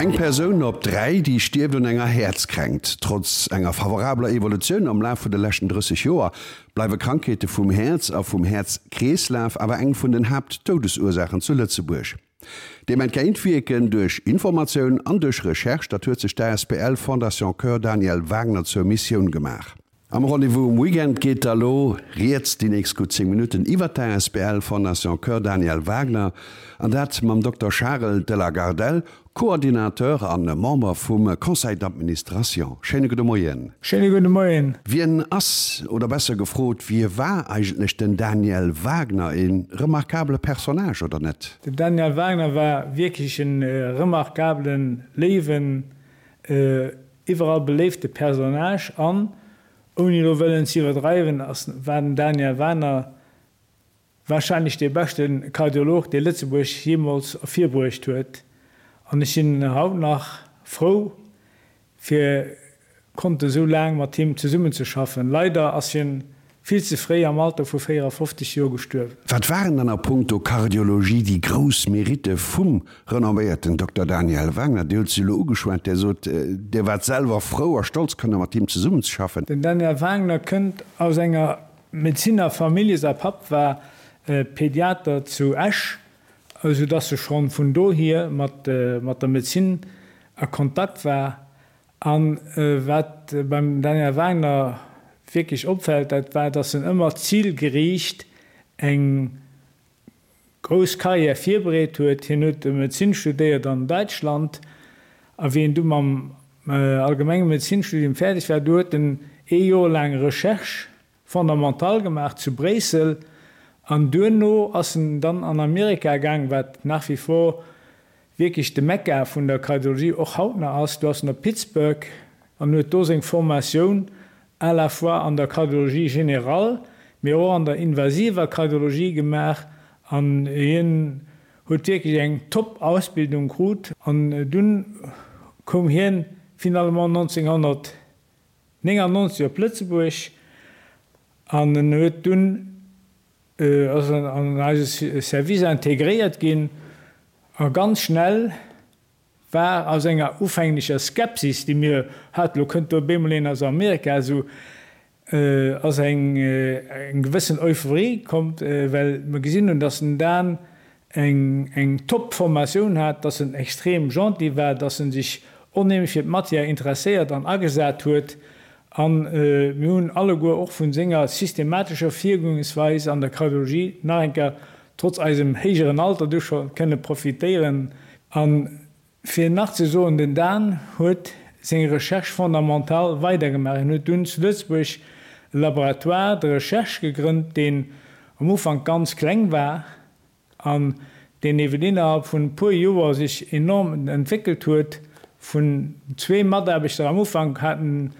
Eng Persoun op 3, déi stierft un enger Häerzkränkt. Trotz enger favorabler Evolutioun am Laf vun de leschten 30 Joer, bleiwe Krankheete vum Häerz a vum Häerzkreeslaf awer eng vun den Haaptdoudesursaachen zu Lëtzebuerg. Deem entgéintwierken duerch Informatioun an duerch Recherche, dat huet sech d'ASBL Fondation Cœur Daniel Wagner zur Missioun gemaach. Am Rendez-vous um Weekend geet da lo rieds déi nächst gutt 10 Minutten iwwert d'ASBL Fondation Cœur Daniel Wagner, an dat mam Dokter Charel de la Gardelle, Coordinateur a Member vum Conseil d'administration. Schéine gudde Moien. Schéine gudde Moien. Wien ass, oder besser gefrot, wie war eigentlech den Daniel Wagner? E remarkabele Personnage, oder net? Den Daniel Wagner war wierklech e remarkabelen, léiwen, Iwwerall beléifte Personnage an, ouni elo wëllen ze iwwerdreiwen, ass war den Daniel Wagner warscheinlech dee beschte Kardiolog, dee Lëtzebuerg jeemools ervirbruecht huet. An ech sinn haut nach frou, fir konnte sou laang mat him zesummenzeschaffen. Leider ass hien Vill ze fréi, am Alter vu 54 Joer gestuerwen. Wat waren dann a punkto Kardiologie déi grouss Meritte vum renomméierten Dokter Daniel Wagner? Dir hutt se elo ugeschwat. Dir sot, Dir waart selwer frou a stolz, kënne mat him zesummenzeschaffen. Den Daniel Wagner kënnt aus enger Medezinerfamillje. Säi Papp war Pediater zu Esch, esou dass e schonn vun dohier mat der Medezin a Kontakt war. A wat beim Daniel Wagner wierklech opfält, dat war, datt en ëmmer zilgeriicht eng grouss Karriär virbereet huet. Hien huet Medezin studéiert an Däitschland a wéi en du mam allgemenge Medezinstudium fäerdeg war, du huet en ee Joer laang Recherche fondamentale gemaach zu Bréissel an duerno ass en dann an Amerika gaang, wat nach wie vor wierklech de Mekka vun der Kardiologie och haut nach ass. Do ass en op Pittsburgh an huet do seng Formatioun à la fois an der Kardiologie générale, mee och an der invasiver Kardiologie gemaach an hien huet wierklech eng top Ausbildung krut an dunn koum hien finalement 1999 op Lëtzebuerg an en huet dunn ass an eise Service integréiert ginn a ganz schnell war aus enger ufänglecher Skepsis, déi mir haten, lo kënnt do op eemol een aus Amerika, esou ass eng gewëssen Euphorie komm, well mer gesinn hunn, dass den Dan eng top Formatioun hat, dass en extrem gentil war, dass en sech onheemlech fir d'Matière interesséiert an agesat huet an mir hunn alleguer och vun senger systematescher Virgoensweis an der Kardiologie nach eng Kéier trotz eisem héijeren Alter du scho kënne profitéieren. A fir nach ze soen, den Dan huet seng Recherche fondamentale weidergemaach. Hien huet dunn zu Lëtzebuerg e Laboratoire de recherche gegrënnt, deen am Ufank ganz kleng war, an deen eeben innerhalb vun e puer Joer sech enorm entwéckelt huet, vun zwee Mataarbechter am Ufank haten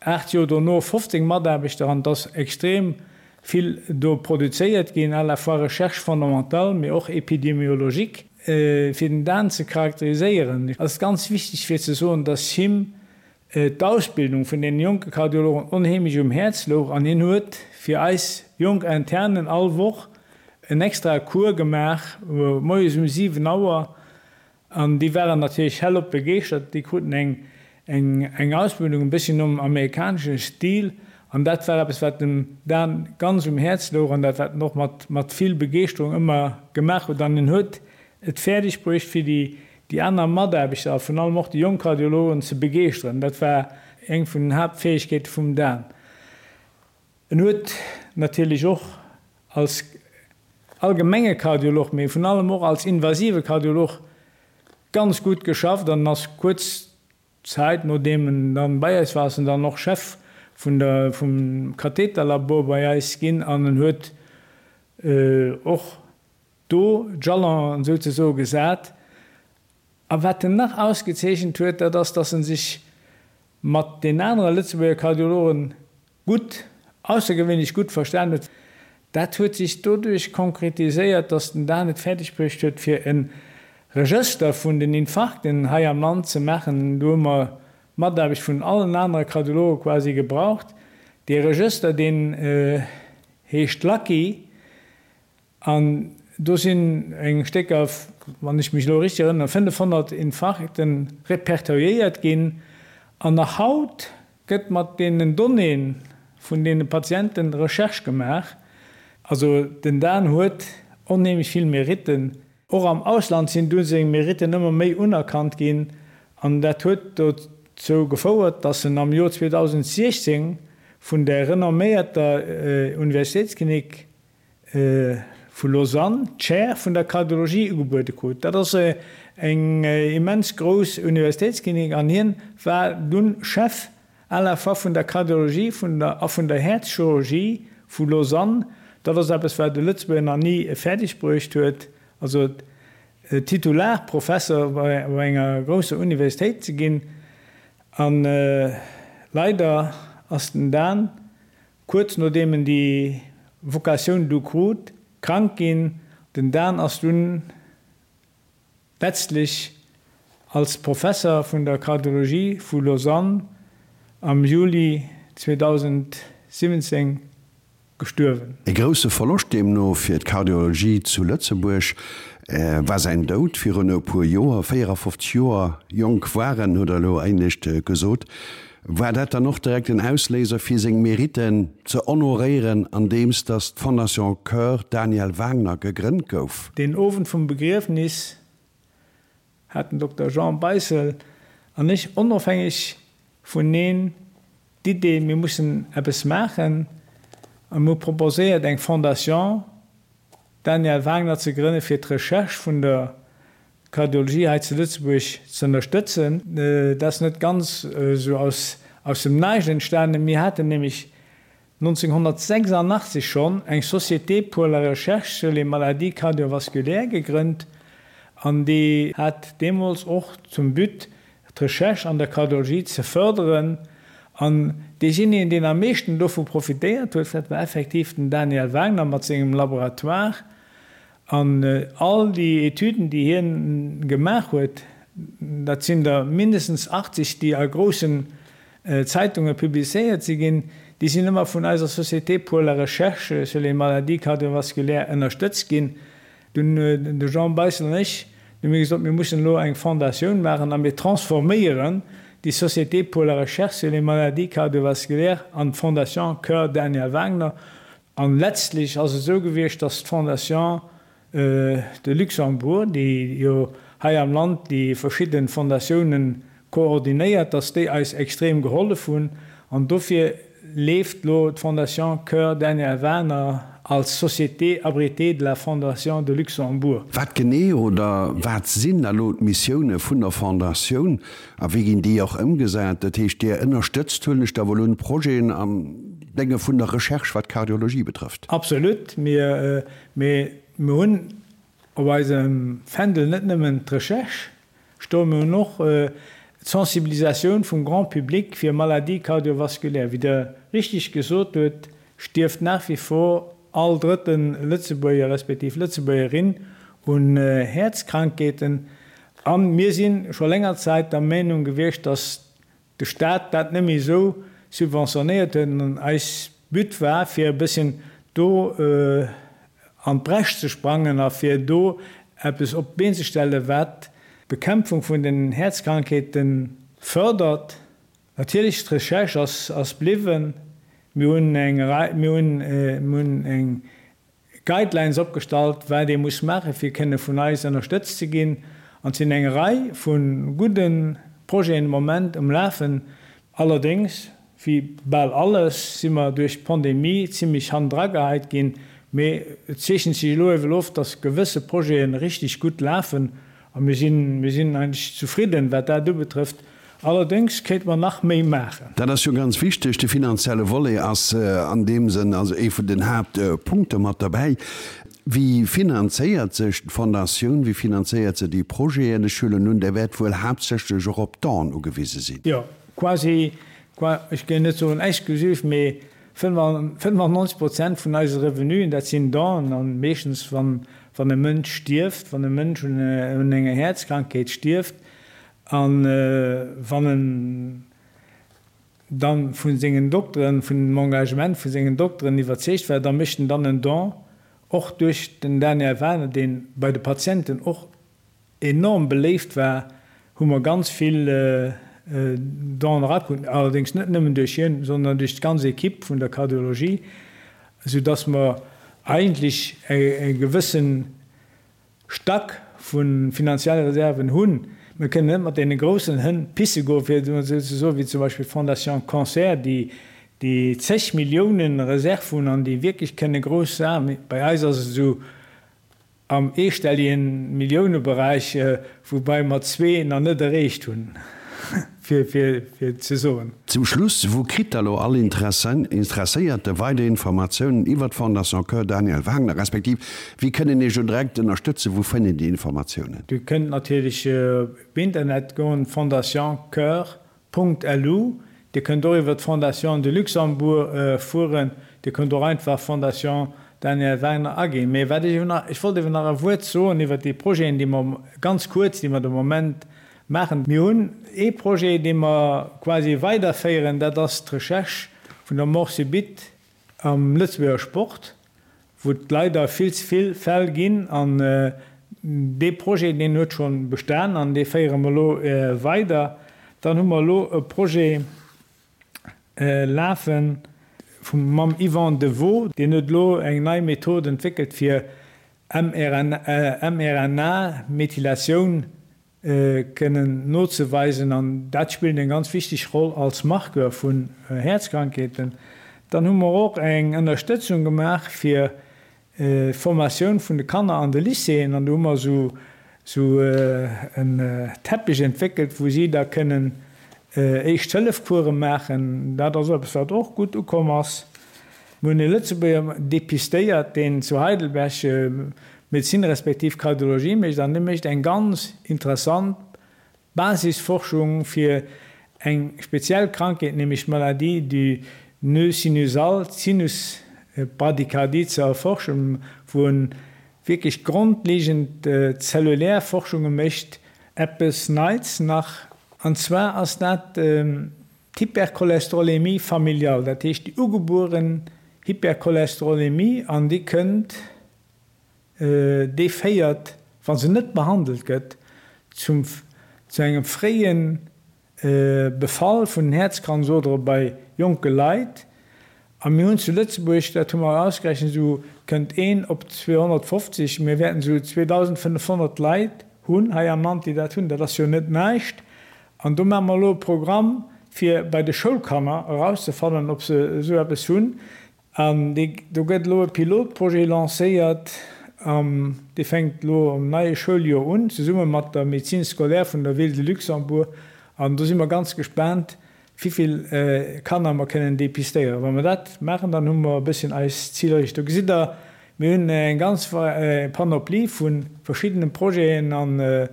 8 Joer dono 15 Mataarbechter an et ass extrem vill do produzéiert ginn, à la fois Recherche fondamentale, mee och épidémiologique. Fir den Dan ze charakteriséieren, ass et ganz wichteg fir ze soen, dass him d'Ausbildung vun deene jonke Kardiologen onheemlech um Häerz louch an hien huet fir eis jonk Internen all Woch en extrae Cours gemaach, moies um 7 Auer, an déi waren natierlech hellop begeeschtert. Déi kruten eng eng Ausbildung e bësschen nom amerikanesche Stil an dat war eppes, wat dem Dan ganz um Häerz louch an dat wat en och mat mat vill Begeeschterung ëmmer gemaach huet an en huet et fäerdeg bruecht fir déi déi aner Mataarbechter a vun allem och déi jonk Kardiologen ze begeeschteren. Dat war eng vun den Haaptfäegkeete vum Dan. En huet natierlech och als allgemenge Kardiolog, mee vun allem och als invasive Kardiolog ganz gutt geschafft an ass kuerz Zäit nodeem en dann bei eis war, ass en dann och Chef vun der vum Katheterlabor bei eis ginn an en huet och do d'Jalonen souzesoe gesat. A wat en nach ausgezeechent huet, dat ass, datt en sech mat den anere Lëtzebuerger Kardiologen gutt, aussergewéinlech gutt verstan huet. Dat huet sech doduerch konkretiséiert, datt den Dan et fäerdeg bruecht huet, fir e Regëster vun den Infarkten hei am Land ze maachen. Do hu mer d'Mataarbecht vun allen anere Kardiologe quasi gebraucht. Dee Regëster, deen heescht Lucky. An do sinn eng Stécker. wann ech mech elo richteg erënneren, 500 Infarkte repertoriéiert ginn. An nach haut gëtt mat deenen Donnéeë vun deene Patiente Recherche gemaach. Also den Dan huet onheemlech vill Meritten. Och am Ausland sinn dunn seng Meritten ëmmer méi unerkannt ginn an dat huet dozou gefouert, datt en am Joer 2016 vun der renomméierter Universitéitsklinik vu Lausanne d'Chaire vun der Kardiologie ugebuede krut. Dat ass eng immens grouss Universitéitsklinik an hien war dunn Chef à la fois vun der Kardiologie vun der a vun der Häerzchirurgie vu Lausanne. Dat ass eppes wat e Lëtzebuerger nach ni fäerdeg bruecht huet, also Titularprofesser bei enger grousser Universitéit ze ginn. A leider ass den Dan Kuerz nodeem en déi Vocatioun du krut, krank ginn. Den Dan ass dunn letztlech als Professer vun der Kardiologie vu Lausanne am Juli 2017 gestuerwen. E grousse Verloscht deemno fir d'Kardiologie zu Lëtzebuerg war säin Doud virun e puer Joer. 54 Joer jonk war en, huet Der elo éinescht gesot. War dat dann och direkt en Ausléiser fir seng Meritten ze honoréieren andeems datt d'Fondation Coeur Daniel Wagner gegrënnt gouf? Deen Owend vum Begriefnis hat den Dokter Jean Beissel an ech onofhängeg vuneen d'Idee, mir mussen eppes maachen a mir hu proposéiert eng Fondation Daniel Wagner ze grënne fir d'Recherche vun der Kardiologie hei zu Lëtzebuerg ze ënnerstëtzen. Dat ass net ganz esou aus dem Näischt entstanen. Mir haten nämlech 1986 schonn eng Société pour la recherche sur les maladies cardiovasculaires gegrënnt an déi hat deemools och zum But, d'Recherche an der Kardiologie ze fërderen. An deejéinegen, deen am meeschten dovu profitéiert huet, dat war effektiv den Daniel Wagner mat sengem Laboratoire. An all déi Etüden, déi hien gemaach huet, dat sinn der mindestens 80, déi a groussen Zeitunge publizéiert si ginn, déi sinn ëmmer vun eiser Société pour la recherche sur les maladies cardiovasculaires ënnerstëtzt ginn. Dunn hunn de Jean Beissel an ech, du hu mir gesot, mir mussen elo eng Fondatioun maachen a mir transforméieren déi Société pour la recherche sur les maladies cardiovasculaires an d'Fondation Coeur Daniel Wagner. An letztlech ass et esou gewiescht, dass d'Fondation de Luxembourg, déi jo hei am Land déi verschidde Fondatiounen koordinéiert, dass déi eis extrem gehollef hunn. An dofir leeft elo d'Fondation Coeur Daniel Wagner als Société abritée de la Fondation de Luxembourg. Wat genee oder wat sinn elo d'Missioune vun der Fondatioun a wéi ginn déi och ëmgesat? Dat heescht, Dir ënnerstëtzt, huelen ech da wuel un, Projeten am Dénge vun der Recherche, wat d'Kardiologie betrëfft? Absolut. Mir, mee mir hunn op eisem Fändel net nëmmen d'Recherche stoen, mir hunn och d'Sensibilisatioun vum Grand public fir Maladies cardiovasculaires. Wéi Der richtig gesot hutt, stierft nach wie vor all drëtte Lëtzebuerger respektiv Lëtzebuergerin un Häerzkrankheeten. A mir si scho länger Zäit der Meinung gewiescht, dass de Staat dat net méi esou subventionéiert huet an eis But war, fir e bësschen do an d'Bresch ze sprangen a fir do eppes op d'Been ze stellen, wat d'Bekämpfung vun den Häerzkrankheete fördert. Natierlech, d'Recherche ass bliwwen. Mir hunn eng Rei, mir hunn, mir hunn eng Guidelines opgestallt, wat ee muss maachen, fir kënne vun eis ënnerstëtzt ze ginn. An et sinn eng Rei vu gudde Projeten de Moment um Lafen. Allerdéngs, wéi bal alles, si mer duerch d'Pandemie zimlech hannendrageheit ginn. Mee et zeechent sech elo ewell of, dass gewësse Projete richteg gutt lafen. A mir sinn, mir sinn eigentlech zufridden, wat dat ubetrëfft. Allerdéngs kéinte mer nach méi maachen. Dat ass jo ganz wichteg. De finanzielle Volet ass an deem Sënn also ee vun den Haaptpunkte mat derbäi. Wéi finanzéiert sech d'Fondatioun? Wéi finanzéiert se déi Projeten? Ech huelen un, Der wäert wuel haaptsächlech och op Donen ugewise sinn. Jo, quasi, ech géing net soen exklusiv, mee 95 Prozent vun eise Revenuen, dat sinn Donen, an meeschtens wann e Mënsch stierft, wann e Mënsch un enger Häerzkrankheet stierft a wann en da vu sengen Dokteren, vun dem Engagement vu sengen Dokteren iwwerzeegt war, da mécht en dann en Don, och duerch den Daniel Wagner, dee bei de Patienten och. enorm beléift war, hu mer ganz vill Donen erakrut, allerdéngs net nëmmen duerch hien, sondern duerch d'ganz Equipe vun der Kardiologie, soudass mer eigentlech e gewësse Stack vu finanzielle Reserven hunn. Mir kënnen net mat deene groussen Hënn pisse goen, fir et emol esou ze soen, wéi zum Beispill d'Fondation Cancer, déi déi zeg Milliounen Reserve hunn an déi wierklech kënne grouss Saachen. Bei eis ass et esou am eestelligen Milliouneberäich, woubai mer zwee nach net erreecht hunn, fir fir ze soen. Zum Schluss, Wou kritt da lo all Interesséierte weider Informatiounen iwwer d'Fondation Cœur Daniel Wagner, respektiv wéi kënnen Iech lo direkt ënnerstëtzen? Wou fënnt een déi Informatiounen? Dir kënnt natierlech op Internet goen, Fondation Cœur Punkt lu. Dir kënnt och iwwer d'Fondation de Luxembourg fueren. Dir kënnt och einfach Fondation Daniel Wagner aginn. Mee wat ech ewer nach, ech wollt ewer nach e Wuert soen iwwer déi Projeten, déi mer, ganz kuerz, déi mer de Moment maachen. Mir hunn ee Projet, dee mer quasi weiderféieren, dat ass d'Recherche vun der Mort subite Am Lëtzebuerger Sport, wou et leider vill ze vill Fäll ginn, an dee Projet, deen huet scho bestan an dee féiere mer elo weider. Dann hu mer elo e Projet lafe mam Yvan Devaux, deen huet elo eng nei Method entwéckelt fir mRNA-Methylatioun kënnen nozeweisen an dat spillt eng ganz wichteg Roll als Marqueur vun Häerzkrankheeten. Dann hu mer och eng Ënnerstëtzung gemaach fir d'Formatioun vun de Kanner an de Lycéeën an do hu mer esou en Teppich entwéckelt, wou si da kënnen Éischt-Hëllef-Course maachen. Dat ass eppes, wat och gutt ukomm ass. Mir hunn e Lëtzebuerger depistéiert, deen zu Heidelberg Medezin respektiv Kardiologie mécht an dee mécht eng ganz interessant Basisforschung fir eng speziell Krankheet, nämlech d'Maladie du nœud sinusal, d'Sinusbradykardie ze erforschen, wou en wierklech grondlegend zellulär Forschunge mécht. Eppes Neits nach, an zwar ass dat d'Hypercholesterolémie familiale, dat heescht déi ugebueren Hypercholesterolémie, an déi kënnt, déi féiert, wa se net behandelt gëtt, zum zu engem fréie Befall vun den Häerzkranzodere bei jonke Leit. A mir hunn zu Lëtzebuerg, dat hu mer ausgerechent, esou kënnt een op 250, mir wäerten esou 2.500 Leit hunn hei am Land, déi dat hunn. Dat ass jo net näischt. An do maache mer elo e Programm, fir bei de Schoulkanner erauszefannen, ob se esou eppes hunn. An do gëtt elo e Pilotprojet lancéiert, dee fänkt elo am neie Schouljoer un, zesumme mat der Médecine scolaire vun der Ville de Luxembourg. An do si mer ganz gespaant, wivill Kanner mer kënnen depistéieren. Wa mer dat maachen, dann hu mer e bësschen eis Zil erreecht. Do gesitt Der, mir hunn eng ganz Panoplie vu verschiddene Projeten a mir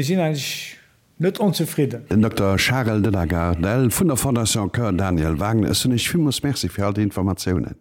sinn eigentlech net onzefridden. Den Dokter Charel de la Gardelle vun der Fondation Cœur Daniel Wagner, ech soen Iech villmools Merci fir all déi Informatiounen.